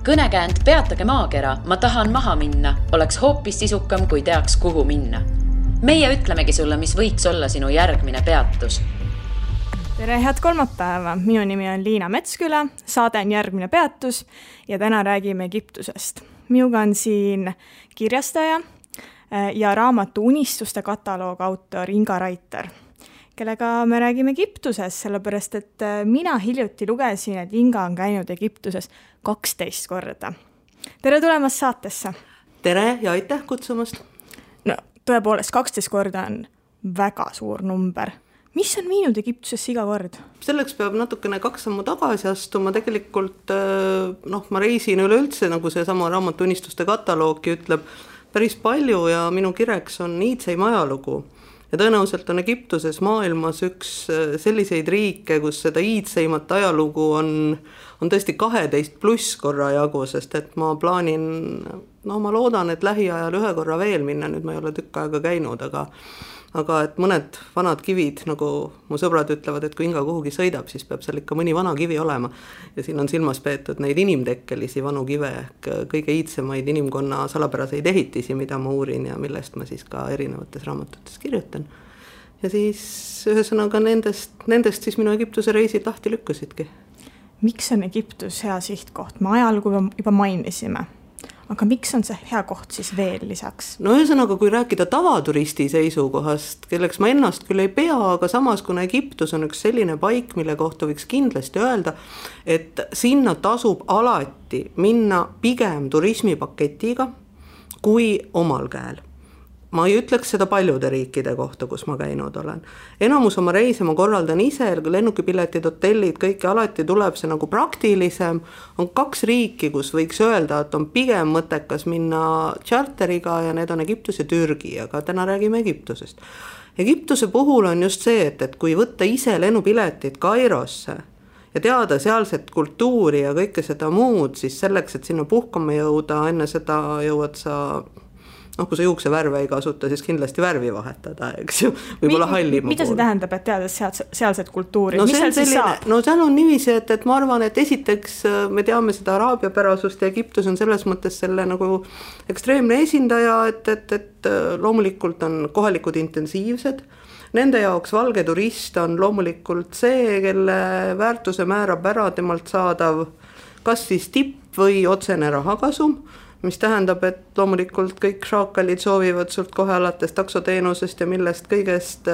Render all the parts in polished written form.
Kõnekäänd Peatage maakera, ma tahan maha minna, oleks hoopis sisukam, kui teaks, kuhu minna. Meie ütlemegi sulle, mis võiks olla sinu järgmine peatus. Tere, head kolmapäeva! Minu nimi on Liina Metsküla, saade on Järgmine peatus ja täna räägime Egiptusest. Minuga on siin kirjastaja ja raamatu Unistuste kataloog autor Inga Raiter, kellega me räägime Egiptusest, sellepärast et mina hiljuti lugesin, et Inga on käinud Egiptuses 12 korda. Tere tulemast saatesse! Tere ja aitäh kutsumast! No, tõepoolest, 12 korda on väga suur number. Mis on viinud Egiptusesse iga kord? Selleks peab natukene 2 sammu tagasi astuma. Tegelikult ma reisin üleüldse, nagu see sama raamatu Unistuste kataloogi ütleb, päris palju ja minu kireks on iidseim ajalugu. Ja tõenäoliselt on Egiptuses maailmas üks selliseid riike, kus seda iidseimat ajalugu on tõesti 12+ korra jagu, sest et ma plaanin, ma loodan, et lähiajal 1 korra veel minna, nüüd ma ei ole tükk aega käinud, aga et mõned vanad kivid, nagu mu sõbrad ütlevad, et kui Inga kuhugi sõidab, siis peab seal ikka mõni vana kivi olema. Ja siin on silmas peetud neid inimtekkelisi vanu kive, kõige iidsemaid inimkonna salapäraseid ehitisi, mida ma uurin ja millest ma siis ka erinevates raamatutes kirjutan. Ja siis ühesõnaga nendest siis minu Egiptuse reisid lahti lükkasidki. Miks on Egiptus hea sihtkoht? Me ajalugu juba mainisime. Aga miks on see hea koht siis veel lisaks? No ühesõnaga, kui rääkida tavaturisti seisukohast, kelleks ma ennast küll ei pea, aga samas kuna Egiptus on üks selline paik, mille kohta võiks kindlasti öelda, et sinna tasub alati minna pigem turismipaketiga kui omal käel. Ma ei ütleks seda paljude riikide kohta, kus ma käinud olen. Enamus oma reise ma korraldan ise, lennukipiletid, hotellid, kõike alati tuleb see nagu praktilisem. On 2 riiki, kus võiks öelda, et on pigem mõttekas minna charteriga ja need on Egiptus ja Türgi, aga täna räägime Egiptusest. Egiptuse puhul on just see, et kui võtta ise lennupiletid Kairosse ja teada sealset kultuuri ja kõike seda muud, siis selleks, et sinna puhkama jõuda, enne seda jõuad sa kui sa juukse värve ei kasuta, siis kindlasti värvi vahetada, eks ju, võib-olla hallima Mida see tähendab, et teades sealset kultuuri? Mis seal siis saab? No seal on niiviisi, et ma arvan, et esiteks me teame seda araabia pärasust ja Egiptus on selles mõttes selle nagu ekstreemne esindaja, et loomulikult on kohalikud intensiivsed. Nende jaoks valge turist on loomulikult see, kelle väärtuse määrab ära temalt saadav kas siis tipp või otsene rahakasum, mis tähendab, et loomulikult kõik šaakalid soovivad sult kohe alates taksoteenusest ja millest kõigest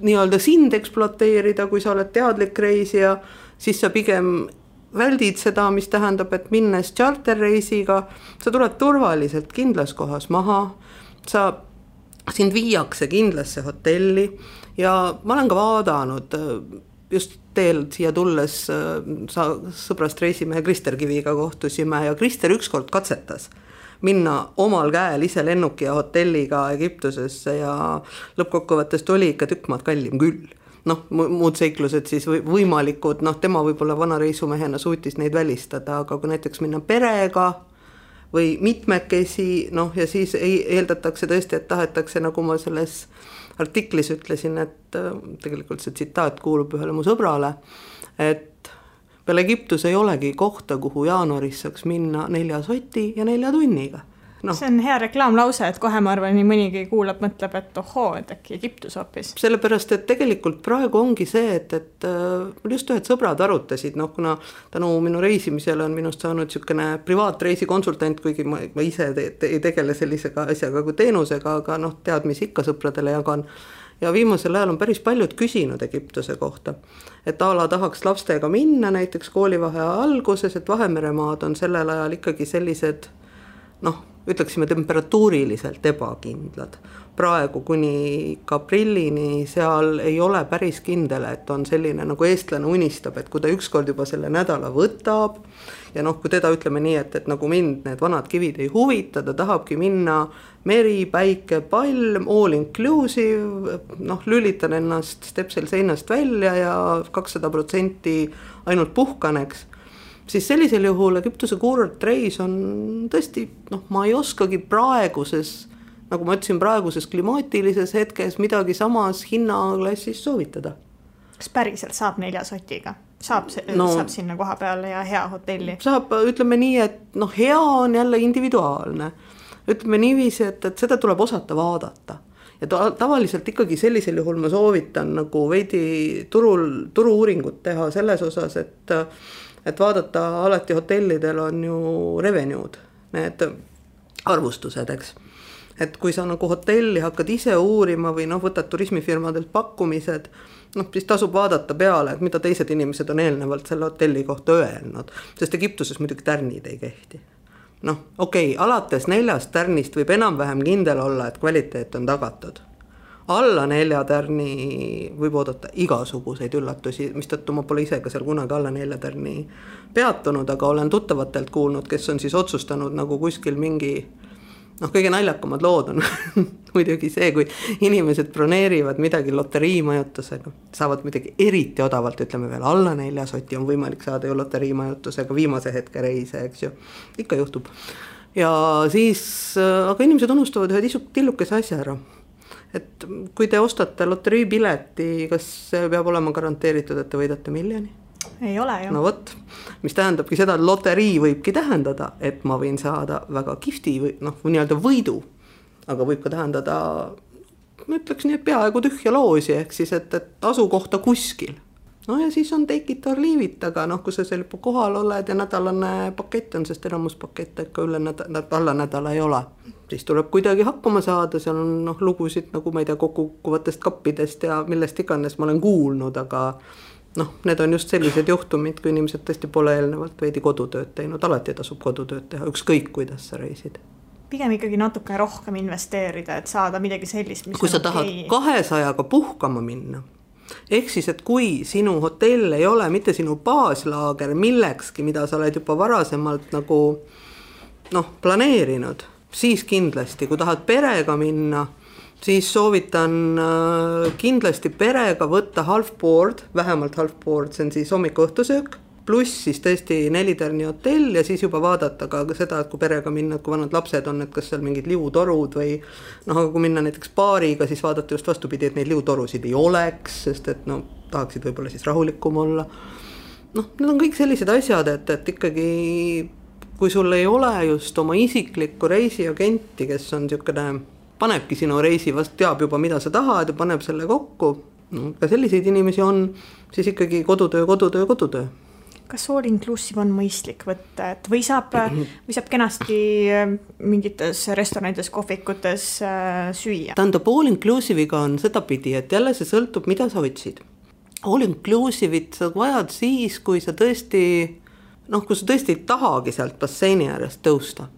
nii-öelda sind ekspluateerida, kui sa oled teadlik reisija, siis sa pigem väldid seda, mis tähendab, et minnes charterreisiga, sa tuled turvaliselt kindlas kohas maha, sind viiakse kindlasse hotelli ja ma olen ka vaadanud just teel siia tulles sõbrast reisimehe Krister Kiviga kohtusime ja Krister ükskord katsetas minna omal käel ise lennuki ja hotelliga Egiptusesse ja lõppkokkuvõttest oli ikka tükk maad kallim küll. Muud seiklused siis võimalikud, tema võib-olla vana reisumehena suutis neid välistada, aga kui näiteks minna perega või mitmekesi, ja siis eeldatakse tõesti, et tahetakse, nagu ma selles artiklis ütlesin, et tegelikult see tsitaat kuulub ühele mu sõbrale, et peale Egiptus ei olegi kohta, kuhu jaanuaris saaks minna 4 soti ja 4 tunniga. See on hea reklaamlause, et kohe ma arvan, nii mõnigi kuulab, mõtleb, et ohoo, et äkki Egiptus hoopis. Sellepärast, et tegelikult praegu ongi see, et just ühed sõbrad arutasid, kuna tänu minu reisimisele on minust saanud niisugune privaatreisikonsultant, kuigi ma ise ei tegele sellisega asjaga kui teenusega, aga teadmisi ikka sõpradele jagan. Ja viimasel ajal on päris paljud küsinud Egiptuse kohta, et ala tahaks lastega minna näiteks koolivaheaja alguses, et Vahemeremaad on sellel ajal ikkagi sellised, ütleksime temperatuuriliselt ebakindlad. Praegu kuni aprillini seal ei ole päris kindel, et on selline nagu eestlane unistab, et kui ta ükskord juba selle nädala võtab ja kui teda ütleme nii, et nagu mind need vanad kivid ei huvita, ta tahabki minna meri, päike, palm, all inclusive, lülitan ennast stepsel seinast välja ja 200% ainult puhkaneks, siis sellisel juhul Egiptuse kuurortreis on tõesti, ma ei oskagi praeguses, nagu ma ütlesin, praeguses klimaatilises hetkes midagi samas hinnaklassis soovitada. Kas päriselt saab 4 sotiga? saab sinna koha peale ja hea hotelli? Saab, ütleme nii, et hea on jälle individuaalne. Ütleme niiviisi, et seda tuleb osata vaadata. Ja tavaliselt ikkagi sellisel juhul ma soovitan nagu veidi turu-uuringut teha selles osas, et vaadata alati hotellidel on ju revenue'd, need arvustused, eks. Et kui sa nagu hotelli hakkad ise uurima või võtad turismifirmadelt pakkumised, siis tasub vaadata peale, et mida teised inimesed on eelnevalt selle hotelli kohta öelnud, sest Egiptuses muidugi tärnid ei kehti. Okei, alates 4 tärnist võib enam-vähem kindel olla, et kvaliteet on tagatud. Alla 4 tärni võib oodata igasuguseid üllatusi, mistõttu ma pole ise ka seal kunagi alla 4 tärni peatunud, aga olen tuttavatelt kuulnud, kes on siis otsustanud nagu kuskil mingi kõige naljakamad lood on muidugi see, kui inimesed broneerivad midagi loteriimajutusega, saavad midagi eriti odavalt, ütleme veel alla 4 soti on võimalik saada ju loteriimajutusega viimase hetke reise, eks ju, ikka juhtub. Ja siis, aga inimesed unustavad ühe tillukese asja ära, et kui te ostate loteriipileti, kas see peab olema garanteeritud, et te võidate miljoni? Ei ole ju. No võt, mis tähendabki seda, et loterii võibki tähendada, et ma võin saada väga kihvti või nii-öelda võidu, aga võib ka tähendada, ma ütleks nii, et peaaegu tühja loosi, ehk siis, et asukohta kuskil. Ja siis on take it or leave it, aga kui sa seal kohal oled ja nädalane pakett on, sest enamus pakette ikka alla nädala ei ole. Siis tuleb kuidagi hakkama saada, seal on lugusid nagu ma ei tea kokkukuvatest kappidest ja millest iganes ma olen kuulnud, aga need on just sellised juhtumid, kui inimesed tõesti pole eelnevalt veidi kodutööd teinud, alati tasub kodutööd teha, ükskõik kuidas sa reisid. Pigem ikkagi natuke rohkem investeerida, et saada midagi sellist, mis kui sa tahad 200-ga puhkama minna, ehk siis, et kui sinu hotell ei ole mitte sinu baaslaager millekski, mida sa oled juba varasemalt nagu planeerinud, siis kindlasti, kui tahad perega minna, siis soovitan kindlasti perega võtta half board, vähemalt half board, see on siis hommikuõhtusöök, pluss siis tõesti 4 tärni hotell ja siis juba vaadata ka seda, et kui perega minna, kui vanad lapsed on, et kas seal mingid liutorud või aga kui minna näiteks paariga, siis vaadata just vastupidi, et neid liutorusid ei oleks, sest et tahaksid võib-olla siis rahulikum olla. Need on kõik sellised asjad, et ikkagi kui sul ei ole just oma isiklikku reisiagenti, kes on niisugune panebki sinu reisi, vast teab juba, mida sa tahad ja paneb selle kokku. Ka selliseid inimesi on, siis ikkagi kodutöö. Kas all inclusive on mõistlik võtta, et või saab kenasti mingites restoranides, kohvikutes süüa? Tähendab, all inclusive'iga on seda pidi, et jälle see sõltub, mida sa otsid. All inclusive'it sa vajad siis, kui sa tõesti ei tahagi sealt basseini äärest tõusta.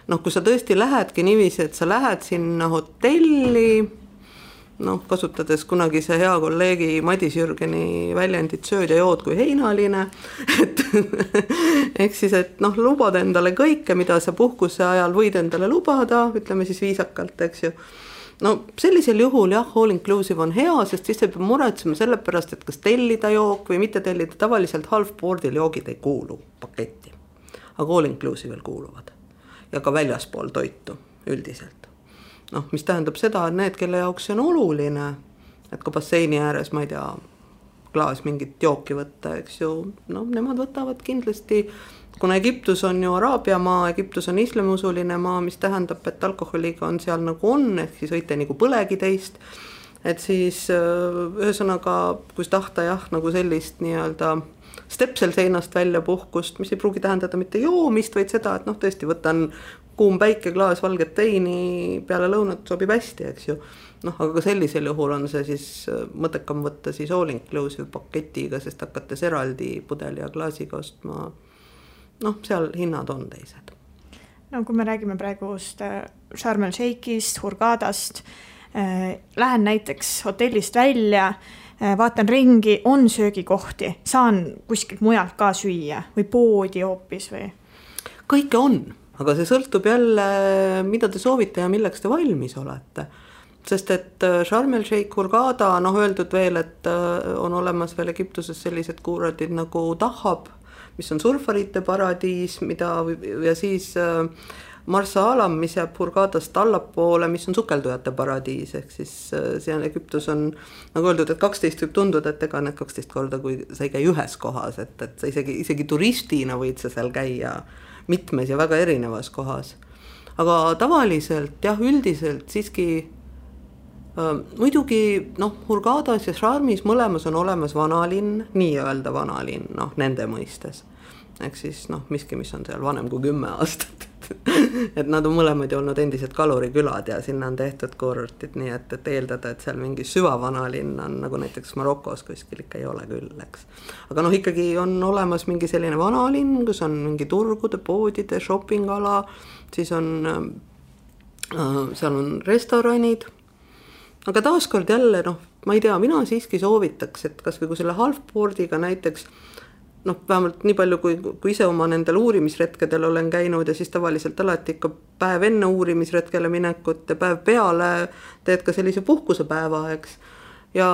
Kui sa tõesti lähedki niiviisi, et sa lähed sinna hotelli, kasutades kunagi see hea kolleegi Madis Jürgeni väljendit sööd ja jood kui heinaline, ehk siis, et lubad endale kõike, mida sa puhkuse ajal võid endale lubada, ütleme siis viisakalt, eks ju. Sellisel juhul jah, all inclusive on hea, sest siis ei pea muretsema selle pärast, et kas tellida jook või mitte tellida, tavaliselt half boardil joogid ei kuulu paketti, aga all inclusive'il kuuluvad. Ja ka väljaspool toitu üldiselt. Mis tähendab seda, et need, kelle jaoks see on oluline, et ka basseini ääres, ma ei tea, klaas mingit jooki võtta, eks ju, nemad võtavad kindlasti, kuna Egiptus on ju Araabia maa, Egiptus on islamiusuline maa, mis tähendab, et alkoholiga on seal nagu on, ehk siis võite nagu põlegi teist, et siis ühesõnaga, kui tahta jah, nagu sellist nii-öelda stepsel seinast välja puhkust, mis ei pruugi tähendada mitte joomist, vaid seda, et tõesti võtan kuum päike, klaas valget teini peale lõunat sobib hästi, eks ju. Aga ka sellisel juhul on see siis mõttekam võtta siis all inclusive paketiga, sest hakates eraldi pudeli ja klaasiga ostma, seal hinnad on teised. Kui me räägime praegust Sharm el Sheikhist, Hurghadast, lähen näiteks hotellist välja, vaatan ringi, on söögikohti, saan kuskilt mujalt ka süüa või poodi hoopis või? Kõike on, aga see sõltub jälle, mida te soovite ja milleks te valmis olete. Sest et Sharm el Sheikh, Hurghada, öeldud veel, et on olemas veel Egiptuses sellised kuuradid nagu Dahab, mis on surfarite paradiis, ja siis Marsa Alam, mis jääb Hurghadast allapoole, mis on sukeldujate paradiis, ehk siis seal Egiptus on nagu öeldud, et 12 võib tunduda, et ega need 12 korda, kui sa ei käi ühes kohas, et sa isegi turistina võid sa seal käia mitmes ja väga erinevas kohas. Aga tavaliselt jah, üldiselt siiski muidugi Hurghadas ja Sharmis mõlemas on olemas vanalinn, nii-öelda vanalinn, nende mõistes. Ehk siis miski, mis on seal vanem kui 10 aastat. Et nad on mõlemad ju olnud endised kalurikülad ja sinna on tehtud kurortid, nii et eeldada, et seal mingi süvavanalinn on, nagu näiteks Marokos kuskil ikka ei ole küll, eks. Aga ikkagi on olemas mingi selline vanalinn, kus on mingi turgude, poodide, shoppingala, siis on, seal on restoranid. Aga taaskord jälle, ma ei tea, mina siiski soovitaks, et kas või kui selle halfboardiga näiteks, vähemalt nii palju, kui ise oma nendel uurimisretkedel olen käinud ja siis tavaliselt alati ikka päev enne uurimisretkele minekut ja päev peale teed ka sellise puhkusepäeva, eks. Ja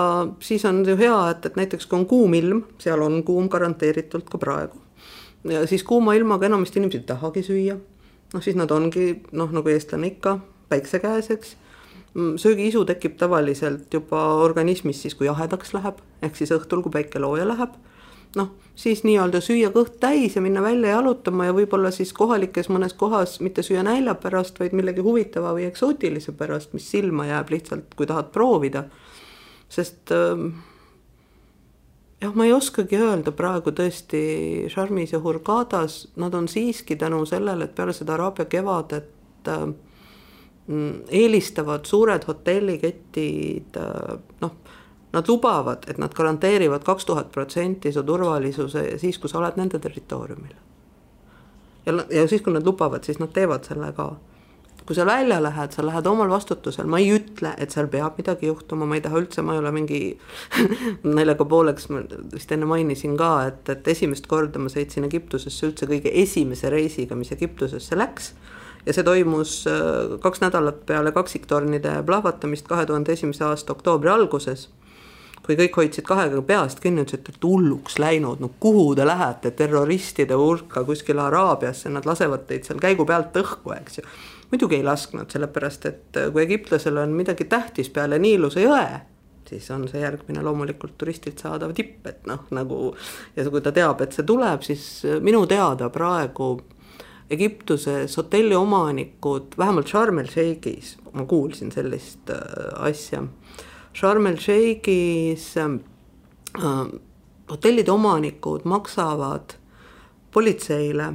siis on ju hea, et näiteks kui on kuum ilm, seal on kuum garanteeritult ka praegu. Ja siis kuuma ilmaga enamasti inimesed ei tahagi süüa. Siis nad ongi, nagu eestlane ikka, päikse käes, eks. Söögiisu tekib tavaliselt juba organismis siis, kui jahedaks läheb, ehk siis õhtul, kui päike looja läheb. Siis nii-öelda süüa kõht täis ja minna välja jalutama ja võib-olla siis kohalikes mõnes kohas mitte süüa nälja pärast, vaid millegi huvitava või eksootilise pärast, mis silma jääb lihtsalt, kui tahad proovida. Sest ma ei oskagi öelda praegu tõesti Sharmis ja Hurghadas, nad on siiski tänu sellele, et peale seda Araabia kevadet eelistavad suured hotelliketid, nad lubavad, et nad garanteerivad 2000% su turvalisuse siis, kui sa oled nende territooriumil. Ja siis, kui nad lubavad, siis nad teevad selle ka. Kui sa välja lähed, sa lähed omal vastutusel, ma ei ütle, et seal peab midagi juhtuma, ma ei taha üldse, ma ei ole mingi naljaga pooleks, ma vist enne mainisin ka, et esimest korda ma sõitsin Egiptusesse üldse kõige esimese reisiga, mis Egiptusesse läks. Ja see toimus 2 nädalat peale kaksiktornide plahvatamist 2001. aasta oktoobri alguses, kui kõik hoidsid kahega peast kinni, et hulluks läinud, kuhu te lähete terroristide hulka kuskil Araabiasse, nad lasevad teid seal käigu pealt õhku, eks ju. Muidugi ei lasknud, sellepärast, et kui egiptlasel on midagi tähtis peale Niiluse jõe, siis on see järgmine loomulikult turistilt saadav tipp, et nagu, ja kui ta teab, et see tuleb, siis minu teada praegu Egiptuses hotelli omanikud, vähemalt Sharm el-Sheikhis, ma kuulsin sellist asja, Sharm el-Sheikhis hotellide omanikud maksavad politseile,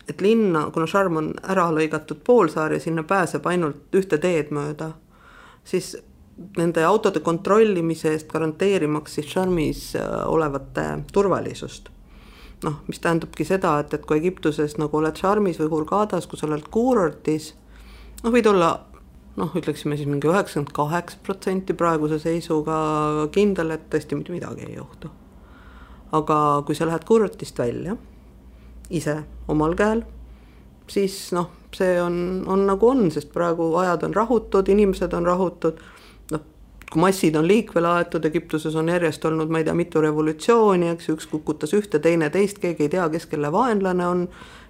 et linna, kuna Sharm on ära lõigatud poolsaar ja sinna pääseb ainult ühte teed mööda, siis nende autode kontrollimise eest garanteerimaks siis Sharmis olevate turvalisust. Mis tähendabki seda, et kui Egiptuses nagu oled Sharmis või Hurghadas, kus oled kuurortis, võid olla, ütleksime siis mingi 98% praeguse seisuga kindel, et tõesti mitte midagi ei juhtu. Aga kui sa lähed kuurortist välja, ise omal käel, siis see on nagu on, sest praegu ajad on rahutud, inimesed on rahutud, kui massid on liikvele aetud, Egiptuses on järjest olnud, ma ei tea, mitu revolutsiooni, eks üks kukutas ühte, teine teist, keegi ei tea, kes kelle vaenlane on,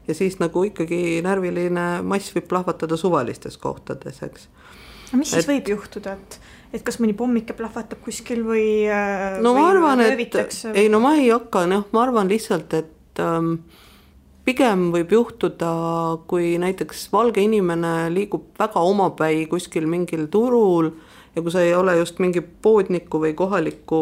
ja siis nagu ikkagi närviline mass võib plahvatada suvalistes kohtades, eks. Mis siis võib juhtuda, et kas mõni pommike plahvatab kuskil või ma arvan, löövitakse? Ma ei hakka, ma arvan lihtsalt, et pigem võib juhtuda, kui näiteks valge inimene liigub väga omapäi kuskil mingil turul, ja kui sa ei ole just mingi poodniku või kohaliku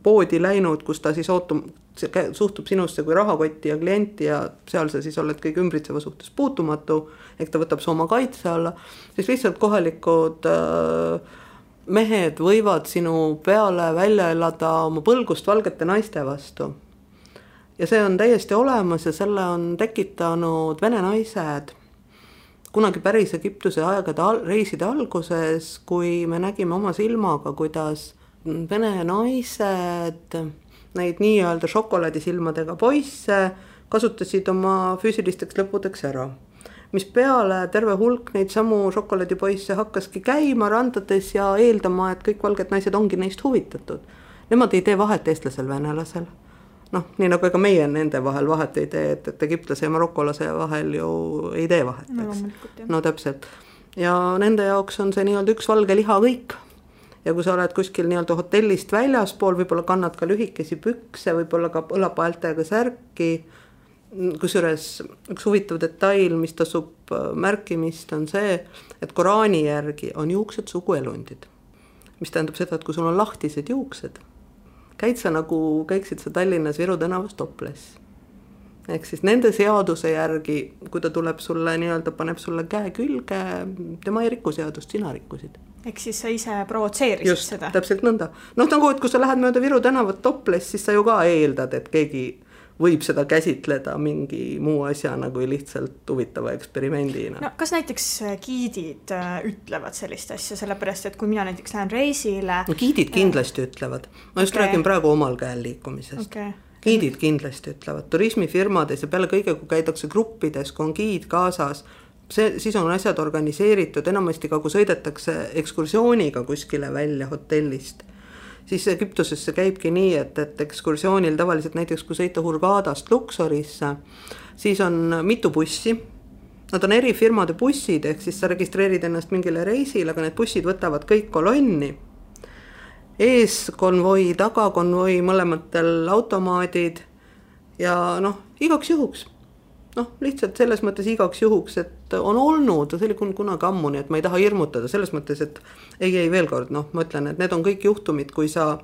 poodi läinud, kus ta siis suhtub sinusse kui rahakotti ja klienti ja seal sa siis oled kõik ümbritseva suhtes puutumatu, ehk ta võtab su oma kaitse alla, siis lihtsalt kohalikud mehed võivad sinu peale välja elada oma põlgust valgete naiste vastu. Ja see on täiesti olemas ja selle on tekitanud vene naised kunagi päris Egiptuse aegade reiside alguses, kui me nägime oma silmaga, kuidas vene naised, neid nii-öelda šokolaadisilmadega poisse kasutasid oma füüsilisteks lõpudeks ära. Mis peale terve hulk neid samu šokolaadipoisse hakkaski käima randades ja eeldama, et kõik valged naised ongi neist huvitatud. Nemad ei tee vahet eestlasel, venelasel. noh, nii nagu ega meie nende vahel vahet ei tee, et egiptlase ja marokolase vahel ju ei tee vahet, eks. No täpselt. Ja nende jaoks on see nii-öelda üks valge liha kõik. Ja kui sa oled kuskil nii-öelda hotellist väljaspool, võib-olla kannad ka lühikesi pükse, võib-olla ka õlapaeltega särki, kusjuures üks huvitav detail, mis tasub märkimist, on see, et Koraani järgi on juuksed suguelundid. Mis tähendab seda, et kui sul on lahtised juuksed, käiksid sa Tallinnas Viru tänavas toples. Ehk siis nende seaduse järgi, kui ta tuleb sulle nii-öelda, paneb sulle käe külge, tema ei riku seadust, sina rikkusid. Ehk siis sa ise provotseerisid seda? Just, täpselt nõnda. Noh, nagu, et kui sa lähed mööda Viru tänavat toples, siis sa ju ka eeldad, et keegi võib seda käsitleda mingi muu asjana kui lihtsalt huvitava eksperimendina. No, kas näiteks giidid ütlevad sellist asja, sellepärast, et kui mina näiteks lähen reisile... No, giidid kindlasti ütlevad. Ma just räägin praegu omal käel liikumisest. Giidid kindlasti ütlevad. Turismifirmades ja peale kõige, kui käidakse gruppides, kui on giid kaasas, siis on asjad organiseeritud, enamasti ka kui sõidetakse ekskursiooniga kuskile välja hotellist. Siis Egiptusesse käibki nii, et ekskursioonil tavaliselt näiteks kui sõita Hurghadast Luxorisse, siis on mitu bussi. Nad on eri firmade bussid, ehk siis sa registreerid ennast mingile reisile, aga need bussid võtavad kõik kolonni. Ees konvoi, taga konvoi, mõlematel automaadid ja noh, igaks juhuks. Noh, lihtsalt selles mõttes igaks juhuks, et on olnud, see oli kunagi ammu, nii et ma ei taha hirmutada selles mõttes, et ei veel kord, noh, ma ütlen, et need on kõik juhtumid, kui sa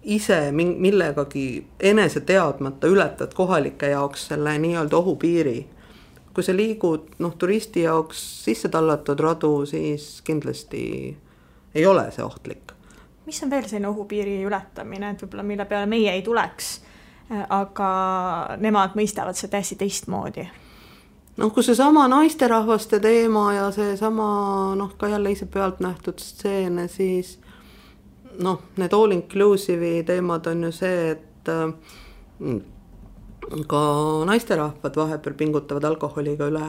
ise millegagi enese teadmata ületad kohalike jaoks selle nii-öelda ohupiiri. Kui sa liigud, noh, turisti jaoks sisse tallatud radu, siis kindlasti ei ole see ohtlik. Mis on veel selline ohupiiri ületamine, et võib-olla mille peale meie ei tuleks? Aga nemad mõistavad see täiesti teistmoodi. Noh, kui see sama naisterahvaste teema ja see sama, noh, ka jälle ise pealt nähtud stseene, siis noh, need all inclusive'i teemad on ju see, et ka naisterahvad vahepeal pingutavad alkoholiga üle.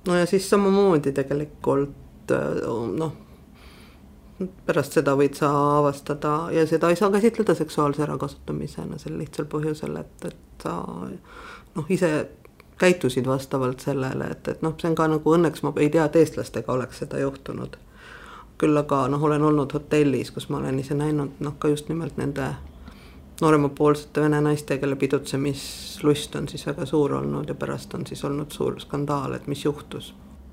No ja siis samamoodi tegelikult, noh, pärast seda võid sa avastada ja seda ei saa käsitleda seksuaalse ärakasutamisena sel lihtsal põhjusel, et sa noh, ise käitusid vastavalt sellele, et noh, see on ka nagu õnneks, ma ei tea, et eestlastega oleks seda juhtunud. Küll aga noh, olen olnud hotellis, kus ma olen ise näinud noh, ka just nimelt nende nooremapoolsete vene naiste, kelle pidutsemislust on siis väga suur olnud ja pärast on siis olnud suur skandaal, et mis juhtus.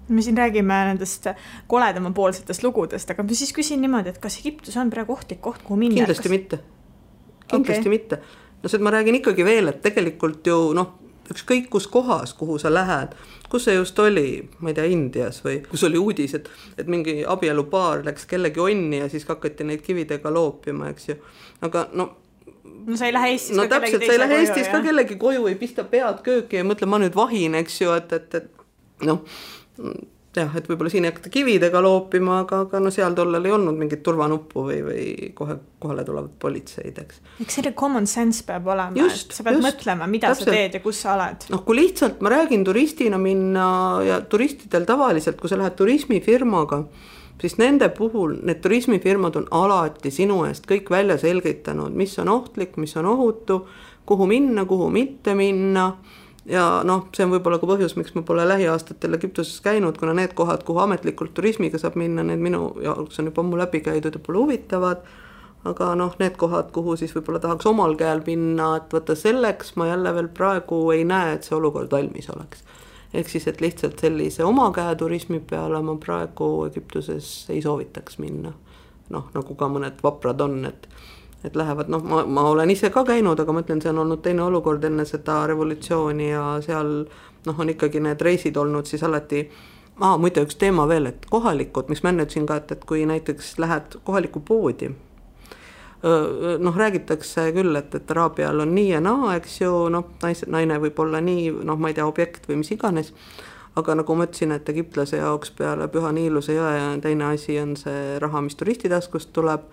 Me siin räägime nendest koledamapoolsetest lugudest, aga ma siis küsin niimoodi, et kas Egiptus on praegu ohtlik koht, kuhu minna? Kindlasti mitte. Kindlasti mitte. No see, et ma räägin ikkagi veel, et tegelikult ju noh, ükskõik kus kohas, kuhu sa lähed, kus see just oli, ma ei tea, Indias või kus oli uudis, et mingi abielupaar läks kellegi onni ja siis hakati neid kividega loopima, eks ju. Aga no sa ei lähe Eestis ka kellegi teise koju. Sa ei lähe Eestis ka kellegi koju, ei pista pead kööki ja mõtle, ma nüüd vahin, eks ju, et noh, jah, et võib-olla siin ei hakata kividega loopima, aga no seal tollel ei olnud mingit turvanuppu või kohale tulevad politseid, eks. Eks selle common sense peab olema, et sa pead mõtlema, mida täpselt. Sa teed ja kus sa oled. Noh, kui lihtsalt ma räägin turistina minna ja turistidel tavaliselt, kui sa lähed turismifirmaga, siis nende puhul need turismifirmad on alati sinu eest kõik välja selgitanud, mis on ohtlik, mis on ohutu, kuhu minna, kuhu mitte minna. Ja noh, see on võib-olla ka põhjus, miks ma pole lähiaastatel Egiptuses käinud, kuna need kohad, kuhu ametlikult turismiga saab minna, need minu jaoks on juba ammu läbi käidud ja pole huvitavad, aga noh, need kohad, kuhu siis võib-olla tahaks omal käel minna, et võtta selleks ma jälle veel praegu ei näe, et see olukord valmis oleks. Ehk siis, et lihtsalt sellise oma käe turismi peale ma praegu Egiptuses ei soovitaks minna. Noh, nagu ka mõned vaprad on, et lähevad, noh, ma olen ise ka käinud, aga mõtlen, see on olnud teine olukord enne seda revolutsiooni ja seal noh, on ikkagi need reisid olnud siis alati, muide üks teema veel, et kohalikud, miks ma enne ütlesin ka, et kui näiteks lähed kohalikku poodi, noh, räägitakse küll, et Araabial on nii ja naa, eks ju, noh, naine võib olla nii, noh, ma ei tea, objekt või mis iganes, aga nagu ma ütlesin, et egiptlase jaoks peale Püha Niiluse jõe ja teine asi on see raha, mis turistitaskust tuleb,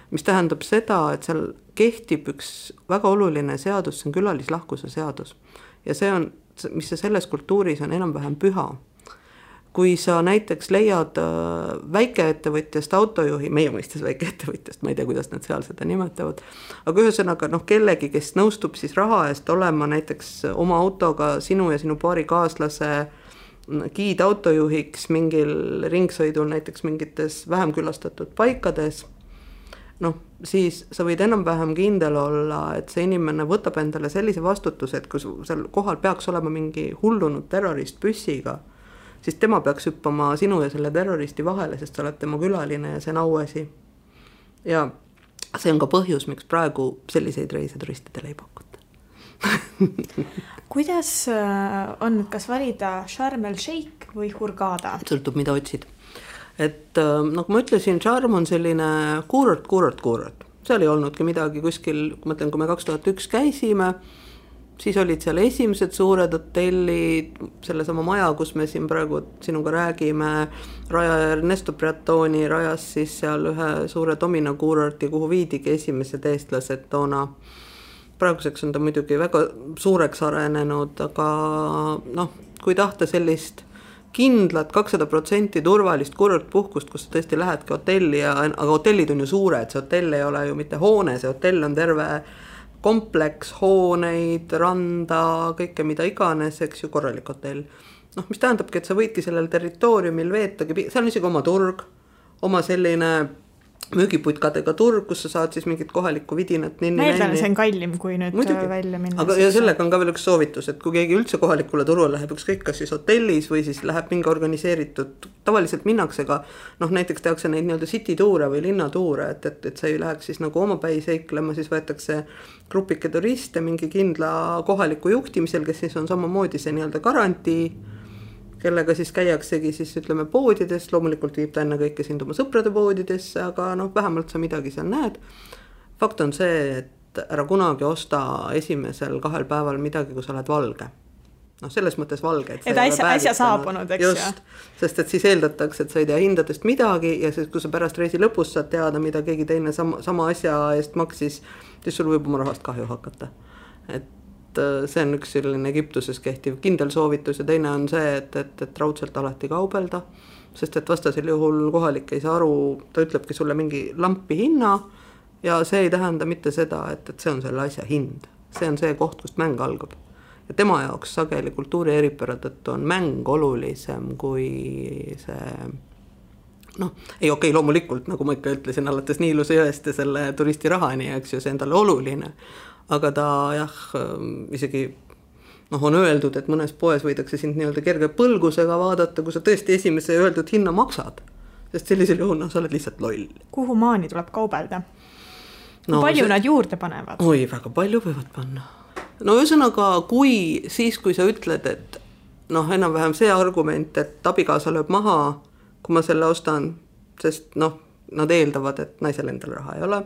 mis tähendab seda, et seal kehtib üks väga oluline seadus, see on külalislahkuse seadus. Ja see on, mis selles kultuuris on enam-vähem püha. kui sa näiteks leiad väikeettevõtjast autojuhi, meie mõistes väikeettevõtjast, ma ei tea, kuidas nad seal seda nimetavad, aga ühesõnaga kellegi, kes nõustub siis raha eest olema näiteks oma autoga sinu ja sinu paari kaaslase giidautojuhiks mingil ringsõidul näiteks mingites vähem külastatud paikades, siis sa võid enam-vähem kindel olla, et see inimene võtab endale sellise vastutuse, et kui seal kohal peaks olema mingi hullunud terrorist püssiga, siis tema peaks hüppama sinu ja selle terroristi vahele, sest sa oled tema külaline ja see on auasi. Ja see on ka põhjus, miks praegu selliseid reise turistidele ei pakuta. Kuidas on, kas valida Sharm el Sheikh või Hurghada? Sõltub, mida otsid. Et nagu ma ütlesin, Sharm on selline kuurort. Seal ei olnudki midagi kuskil, kui mõtlen, kui me 2001 käisime, siis olid seal esimesed suured hotellid, sellesama maja, kus me siin praegu sinuga räägime, rajaja Ernesto Briatoni rajas siis seal ühe suure domino kuurorti, kuhu viidigi esimesed eestlased toona. Praeguseks on ta muidugi väga suureks arenenud, aga kui tahta sellist kindlat 200% turvalist kuurortpuhkust, kus sa tõesti lähedki hotelli, aga hotellid on ju suured, see hotell ei ole ju mitte hoone, see hotell on terve kompleks, hooneid, randa, kõike mida iganes, eks ju, korralik hotell. Mis tähendabki, et sa võidki sellel territooriumil veetagi, seal on isegi oma turg, oma selline müügiputkadega turg, kus sa saad siis mingit kohalikku vidinat ninni. Ma eeldan, see on kallim, kui nüüd muidugi välja minna. Aga ja sellega on ka veel üks soovitus, et kui keegi üldse kohalikule turule läheb, ükskõik kas siis hotellis või siis läheb mingi organiseeritud, tavaliselt minnaksega, näiteks tehakse neid nii-öelda city tuure või linnatuure, et sa ei läheks siis nagu omapäi seiklema, siis võetakse grupike turiste mingi kindla kohaliku juhtimisel, kes siis on samamoodi see nii-öelda garantii, kellega siis käiaksegi siis ütleme poodides, loomulikult viib ta enne kõike sind oma sõprade poodidesse, aga vähemalt sa midagi seal näed. Fakt on see, et ära kunagi osta esimesel 2 päeval midagi, kui sa oled valge. Selles mõttes valge. Et äsja saabunud, eks just, sest et siis eeldatakse, et sa ei tea hindadest midagi ja siis, kui sa pärast reisi lõpus saad teada, mida keegi teine sama asja eest maksis, siis sul võib oma rahast kahju hakata. Et see on üks selline Egiptuses kehtiv kindel soovitus ja teine on see, et raudselt alati kaubelda, sest et vastasel juhul kohalik ei saa aru, ta ütlebki sulle mingi lampi hinna ja see ei tähenda mitte seda, et see on selle asja hind. See on see koht, kust mäng algab. Ja tema jaoks sageli kultuuri eripära tõttu on mäng olulisem kui see ei okei, loomulikult, nagu ma ikka ütlesin, alates Niiluse jõest ja selle turisti rahani, eks ju, see on talle oluline. Aga ta isegi on öeldud, et mõnes poes võidakse sind nii-öelda kerge põlgusega vaadata, kui sa tõesti esimese öeldud hinna maksad. Sest sellisel juhul sa oled lihtsalt loll. Kuhu maani tuleb kaubelda? Kui palju nad juurde panevad? Oi, väga palju võivad panna. Ühesõnaga, kui sa ütled, et enam-vähem see argument, et abikaasa lööb maha, kui ma selle ostan, sest nad eeldavad, et naisel endal raha ei ole,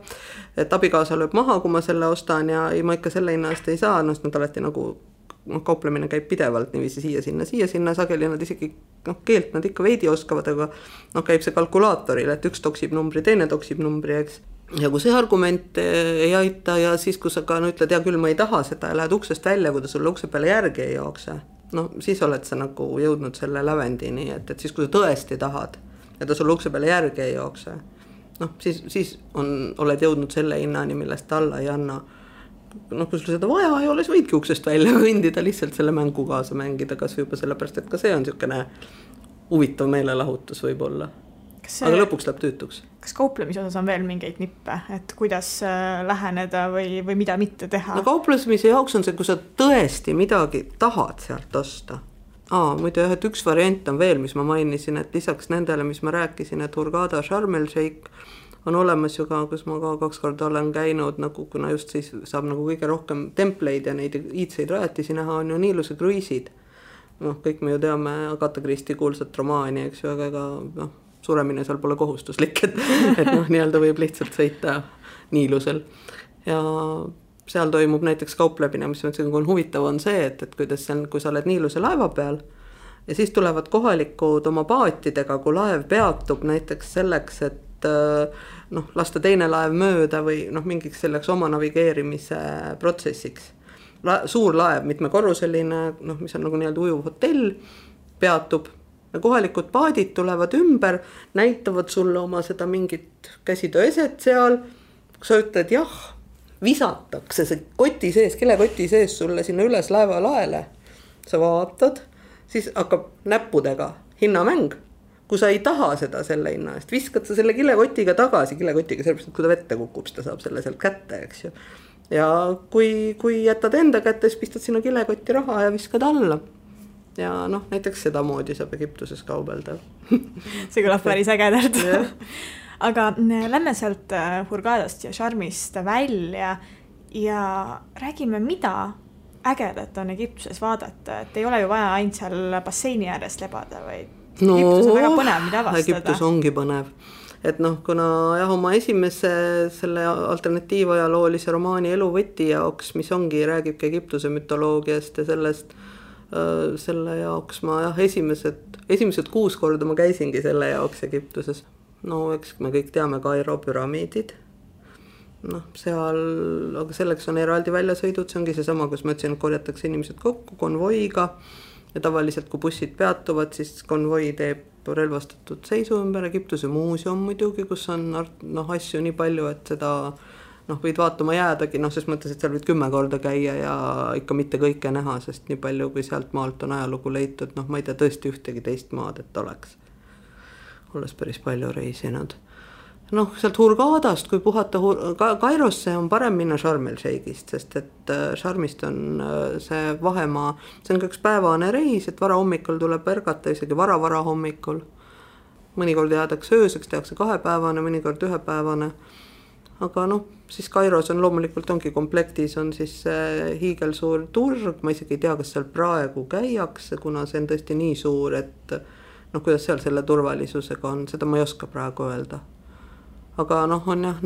et abikaasa lööb maha, kui ma selle ostan ja ma ikka selle hinna eest ei saa, nad alati nagu kauplemine käib pidevalt niiviisi siia sinna, sageli nad isegi keelt nad ikka veidi oskavad, aga käib see kalkulaatoril, et üks toksib numbri, teine toksib numbri, eks. Ja kui see argument ei aita ja siis, kui sa ka ütled, ja küll ma ei taha seda ja lähed uksest välja, kui ta sulle ukse peale järgi ei jookse, siis oled sa nagu jõudnud selle lävendini, et siis kui sa tõesti tahad, ja ta sulle ukse peale järgi ei jookse, siis oled jõudnud selle hinnani, millest ta alla ei anna. Kui sul seda vaja ei ole, siis võidki uksest välja kõndida, lihtsalt selle mängu kaasa mängida, kas juba sellepärast, et ka see on niisugune huvitav meelelahutus võib-olla. Aga lõpuks läheb tüütuks. Kas kauplemise osas on veel mingeid nippe, et kuidas läheneda või mida mitte teha? Kauplemise jaoks on see, kui sa tõesti midagi tahad sealt osta. Muidu et üks variant on veel, mis ma mainisin, et lisaks nendele, mis ma rääkisin, et Hurghada, Sharm el Sheikh on olemas ju ka, kus ma ka 2 korda olen käinud, kuna just siis saab nagu kõige rohkem templeid ja neid iidseid rajatisi näha, on ju Niiluse kruiisid. Kõik me ju teame Agatha Christie kuulsat romaani, eks ju, aga suremine seal pole kohustuslik, et nii-öelda võib lihtsalt sõita Niilusel. Ja seal toimub näiteks kauplemine, mis on huvitav, on see, et kuidas kui sa oled Niiluse laeva peal ja siis tulevad kohalikud oma paatidega, kui laev peatub näiteks selleks, et lasta teine laev mööda või mingiks selleks oma navigeerimise protsessiks. Suur laev, mitmekorruseline, mis on nagu nii-öelda ujuv hotell, peatub ja kohalikud paadid tulevad ümber, näitavad sulle oma seda mingit käsitööeset seal, kui sa ütled jah, visatakse see koti sees, kilekoti sees sulle sinna üles laevalaele, sa vaatad, siis hakkab näppudega hinnamäng. Kui sa ei taha seda selle hinna eest, viskad sa selle kilekotiga tagasi, kilekotiga sellepärast, et kui ta vette kukub, ta saab selle sealt kätte, eks ju. Ja kui jätad enda kätte, siis pistad sinna kilekotti raha ja viskad alla. Ja noh, näiteks seda moodi saab Egiptuses kaubelda. See kõlab päris ägedalt. Aga lähme sealt Hurghadast ja Sharmist välja ja räägime, mida ägedat on Egiptuses vaadata. Et ei ole ju vaja ainult seal basseini äärest lebada, vaid Egiptus on väga põnev, mida avastada. Egiptus ongi põnev. Et noh, kuna jah, oma esimese selle alternatiivajaloolise romaani Eluvõti jaoks, mis ongi, räägibki Egiptuse mütoloogiast ja sellest, selle jaoks ma jah, esimesed 6 korda ma käisingi selle jaoks Egiptuses. No eks me kõik teame Kairo püramiidid. Noh, seal, aga selleks on eraldi väljasõidud, see ongi seesama, kus ma ütlesin, et korjatakse inimesed kokku konvoiga. Ja tavaliselt, kui bussid peatuvad, siis konvoi teeb relvastatud seisu ümber. Egiptuse muuseum muidugi, kus on asju nii palju, et seda võid vaatama jäädagi, ses mõttes, et seal võid 10 korda käia ja ikka mitte kõike näha, sest nii palju, kui sealt maalt on ajalugu leitud, ma ei tea tõesti ühtegi teist maad, et oleks. Olles päris palju reisinud. Sealt Hurghadast, kui puhata Kairosse, on parem minna Sharm el-Sheikhist, sest et Sharmist on see vahemaa, see on ka üks päevane reis, et vara hommikul tuleb ärgata, isegi vara hommikul. Mõnikord jäädakse ööseks, tehakse 2-päevane, mõnikord 1-päevane. Aga siis Kairos on loomulikult ongi komplektis, on siis hiigelsuur turg, ma isegi ei tea, kas seal praegu käiakse, kuna see on tõesti nii suur, et kuidas seal selle turvalisusega on, seda ma ei oska praegu öelda. Aga on jah,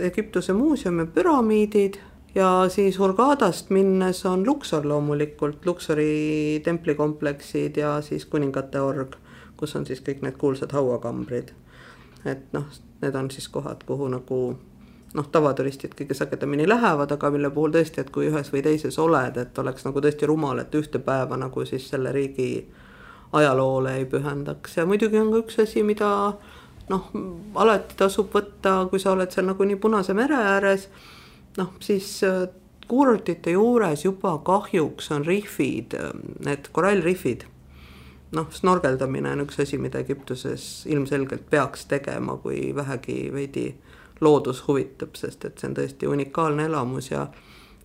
Egiptuse muuseum ja püramiidid ja siis Hurghadast minnes on Luxor loomulikult, Luxori templikompleksid ja siis kuningate org, kus on siis kõik need kuulsad hauakambrid. Et need on siis kohad, kuhu tavaturistid kõige sagedamini lähevad, aga mille puhul tõesti, et kui ühes või teises oled, et oleks tõesti rumal, et ühte päeva siis selle riigi ajaloole ei pühendaks. Ja muidugi on ka üks asi, mida alati tasub võtta, kui sa oled seal nii Punase mere ääres, siis kuurortite juures juba kahjuks on rifid, need korallrifid. Snorgeldamine on üks asi, mida Egiptuses ilmselgelt peaks tegema, kui vähegi veidi loodus huvitab, sest et see on tõesti unikaalne elamus ja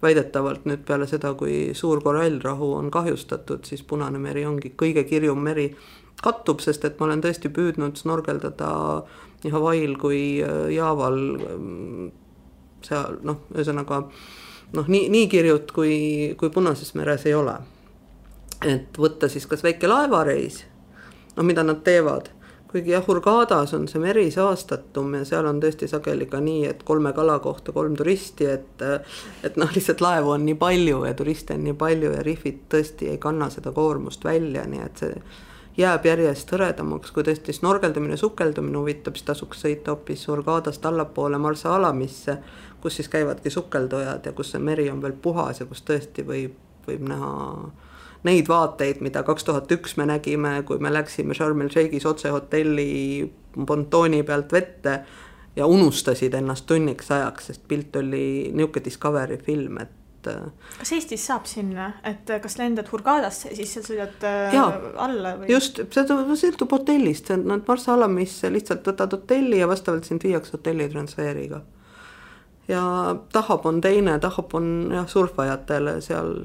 väidetavalt nüüd peale seda, kui suur korallrahu on kahjustatud, siis Punane meri ongi kõige kirjum meri, kattub, sest et ma olen tõesti püüdnud snorgeldada nii Hawaii'l kui Jaaval seal, ühesõnaga nii kirjut kui Punases meres ei ole. Et võtta siis kas väike laevareis, mida nad teevad, kuigi Hurghadas on see meri saastatum ja seal on tõesti sageli ka nii, et 3 kala kohta 3 turisti, et lihtsalt laevu on nii palju ja turiste on nii palju ja rifid tõesti ei kanna seda koormust välja, nii et see jääb järjest hõredamaks, kui tõesti snorgeldamine, sukeldumine huvitab, siis tasuks sõita hoopis Hurghadast allapoole Marsa Alamisse, kus siis käivadki sukeldujad ja kus see meri on veel puhas ja kus tõesti võib näha neid vaateid, mida 2001 me nägime, kui me läksime Sharm el-Sheikhis otse hotelli pontooni pealt vette ja unustasid ennast tunniks ajaks, sest pilt oli niuke Discovery film, et kas Eestis saab sinna, et kas lendad Hurghadasse ja siis seal sõidad alla? Või? Just, see sõltub hotellist, nad Marsa Alamisse lihtsalt võtad hotelli ja vastavalt sind viiaks hotelli transfeeriga. Ja Tahab on teine, Tahab on surfajatele, seal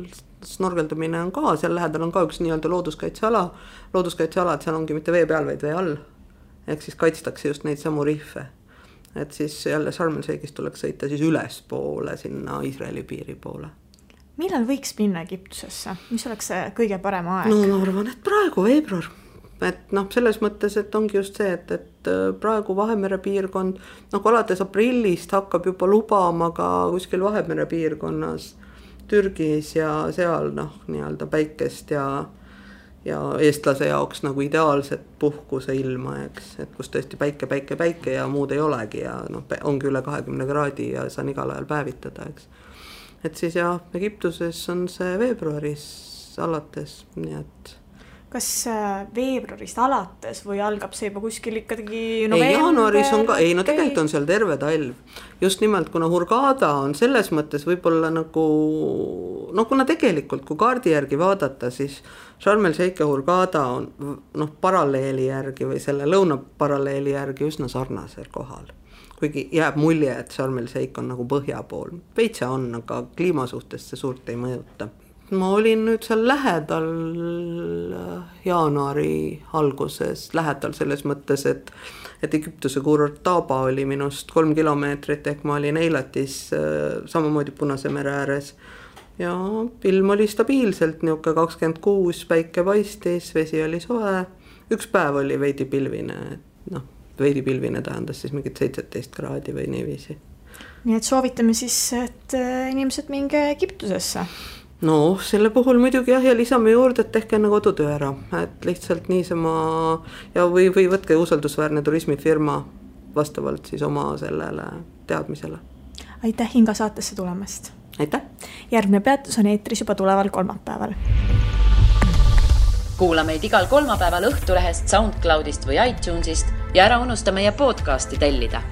snorgeldamine on ka, seal lähedal on ka üks nii-öelda looduskaitseala, et seal ongi mitte vee peal, vaid vee all. Ehk siis kaitstakse just neid samu rihve. Et siis jälle Sharm el-Sheikhist tuleks sõita siis üles poole sinna Iisraeli piiri poole. Millal võiks minna Egiptusesse? Mis oleks see kõige parem aeg? Ma arvan, et praegu veebruar. Et selles mõttes, et ongi just see, et praegu Vahemere piirkond, alates aprillist hakkab juba lubama ka kuskil Vahemere piirkonnas Türgis ja seal nii-öelda päikest ja eestlase jaoks ideaalset puhkuse ilma, eks, et kus tõesti päike ja muud ei olegi ja ongi üle 20 kraadi ja saan igal ajal päevitada, eks. Et siis Egiptuses on see veebruaris alates, nii et kas veebruarist alates või algab see juba kuskil ikkagi november? Jaanuaris on ka, no tegelikult on seal terve talv. Just nimelt, kuna Hurghada on selles mõttes võib-olla nagu, kuna tegelikult, kui kaardi järgi vaadata, siis Sharm el Sheikh ja Hurghada on paralleeli järgi või selle lõunaparalleeli järgi üsna sarnasel kohal. Kuigi jääb mulje, et Sharm el Sheikh on nagu põhja pool. Veitsa on, aga kliima suhtes see suurt ei mõjuta. Ma olin nüüd seal lähedal jaanuari alguses, lähedal selles mõttes, et Egiptuse kuurort Taba oli minust 3 kilomeetrit, ehk ma olin Eilatis samamoodi Punase mere ääres. Ja ilm oli stabiilselt, niuke 26, päike paistis, vesi oli soe, üks päev oli veidi pilvine, veidi pilvine tähendas siis mingit 17 kraadi või niiviisi. Nii et soovitame siis, et inimesed minge Egiptusesse. No selle puhul muidugi ja lisame juurde, et tehke enne kodutöö ära, et lihtsalt niisama ja või võtke usaldusväärne turismifirma vastavalt siis oma sellele teadmisele. Aitäh Inga saatesse tulemast. Aitäh. Järgmine peatus on eetris juba tuleval kolmapäeval. Kuula meid igal kolmapäeval Õhtulehest, SoundCloudist või iTunesist ja ära unusta meie podcasti tellida.